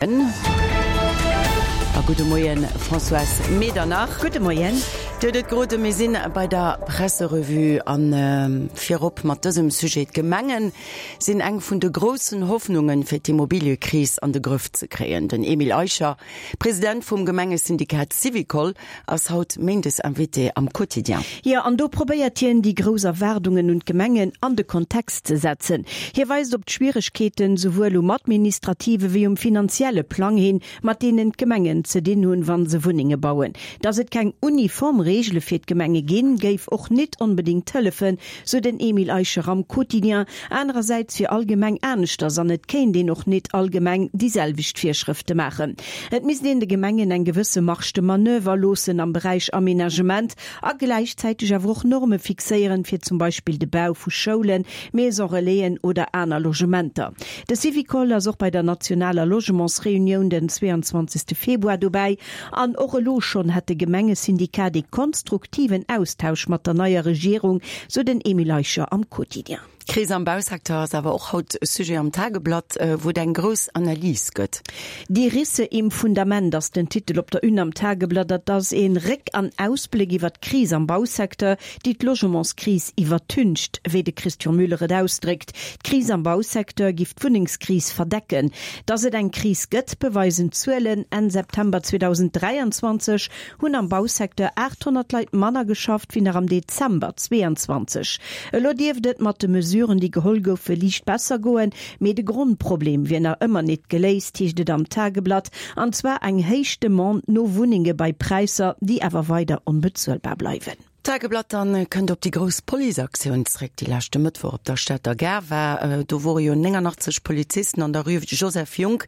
A gudde Moien, Françoise Medernach. Gudde Moien. Dir hutt et geroden, mir sinn bei der Presserevue an virop mat dësem Sujet. D'Gemenge sinn eng vun de groussen Hoffnungen, fir d'Immobiliëkris an de Grëff ze kréien. Den Emile Eicher, President vum Gemengesyndikat Syvicol, ass haut méindes Invité am Quotidien. Jo, an do probéiert hien, déi grouss Erwaardungen un d'Gemengen an de Kontext ze setzen. Hie weist op d'Schwieregkeeten, souwuel um administrative wéi um finanzielle Plang hin, mat deenen d'Gemengen ze dinn hunn, wa se Wunnenge bauen. Datt et keng uniform Reegele fir d'Gemenge ginn, géif och nit onbedéngt hëllefen, sou den Emile Eicher am Quotidien. Anerersäits wier all Gemeng aneschters an et kéint een och nit all Gemeng déi selwecht Virschrëfte maachen. Et misst een de Gemengen eng gewësse Marge de manoeuvre loossen am Beräich Aménagement a gläichzäiteg awer och Norme fixéieren, fir zum Beispill de Bau vu Schoulen, Maison-relaisen oder aner Logementer. De Syvicol ass och bei der nationaler Logementsreunioun den 22 Februar dobäi. An och elo schonn hätt de Gemengesyndikat ee konstruktiven Austausch mat der neier Regierung, sou den Emile Eicher am Quotidien. D'Kris am Bausecteur ass awer och haut Sujet am Tageblatt, wou et eng grouss Analys gëtt. Die Risse im Fundament ass den Titel op der Une am Tageblatt. Dat ass ee Réck an Ausbléck iwwer d'Kris am Bausecteur, déi d'Logementskris iwwertüncht, wéi de Christian Müller et ausdréckt. D'Kris am Bausecteur giff d'Wunnengskris verdecken. Datt et eng Kris gëtt, beweisen d'Zuelen. Enn September 2023 hunn am Bausecteur 800 Leit manner geschafft wéi nach am Dezember 22. Elo dierft et mat de Mesuren, déi geholl goufe, liicht besser goen, mee de Grondproblem wier nach ëmmer nit geléist, heescht et am Tageblatt, an zwar eng héich Demande no Wunnenge bei Präisser, déi awer weider onbezuelbar bleiwen. D'Tageblatt dann kënnt op déi grouss Policeaktioun zréck, déi leschte Mëttwoch op der Stater Gare war. Do wore jo 89 Polizisten an der Rue Joseph Junck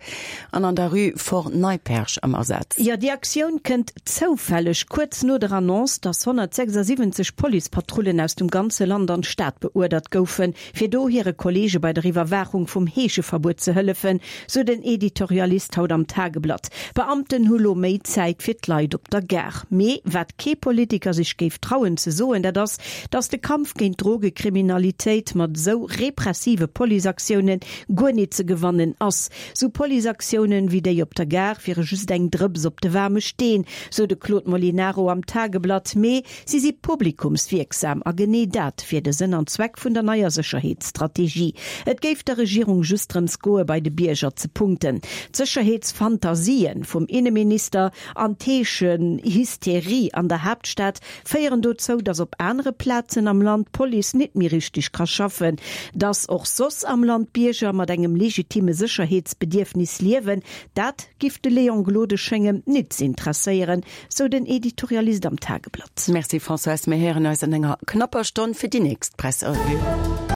an an der Rue Fort Neipperg am Asaz. Jo, déi Aktioun kënnt zoufälleg kuerz no der Annonce, dass 176 Policepatrullen aus dem ganze Land an d'Stad beuerdert goufen, fir do hire Kolleege bei der Iwwerwaachung vum Heescheverbuet ze hëllefen, sou den Editorialist haut am Tageblatt. D'Beamten hu lo méi Zäit fir d'Leit op der Gare. Mee wat kee Politiker sech géif trauen ze soen, dat ass, datt de Kampf géint d'Drogekriminalitéit mat esou repressive Policeaktioune guer nit ze gewannen ass. Sou Policeaktiounen wéi déi op der Gare wiere just eng Drëps op de waarme Steen, sou de Claude Molinaro am Tageblatt. Mee Si si publikumswierksam a genee dat wier de Sënn an Zweck vun der neier Sécherheetsstrategie. Et géif der Regierung just drëms goe bei de Bierger ze punkten. D'Sécherheetsfantasien vum Inneminister an d'Heeschenhysterie an der Haaptstad féieren dozou, datt op anere Plazen am Land d'Police nit méi richteg ka schaffen. Datt och soss am Land d'Bierger mat engem legitime Sécherheetsbedierfnis liewen, dat giff de Léon Gloden schéngen nit z'intresséieren. Sou den Editorialist am Tageblatt. Merci Françoise, mir héieren eis an enger knapper Stonn fir déi nächst Presserevue.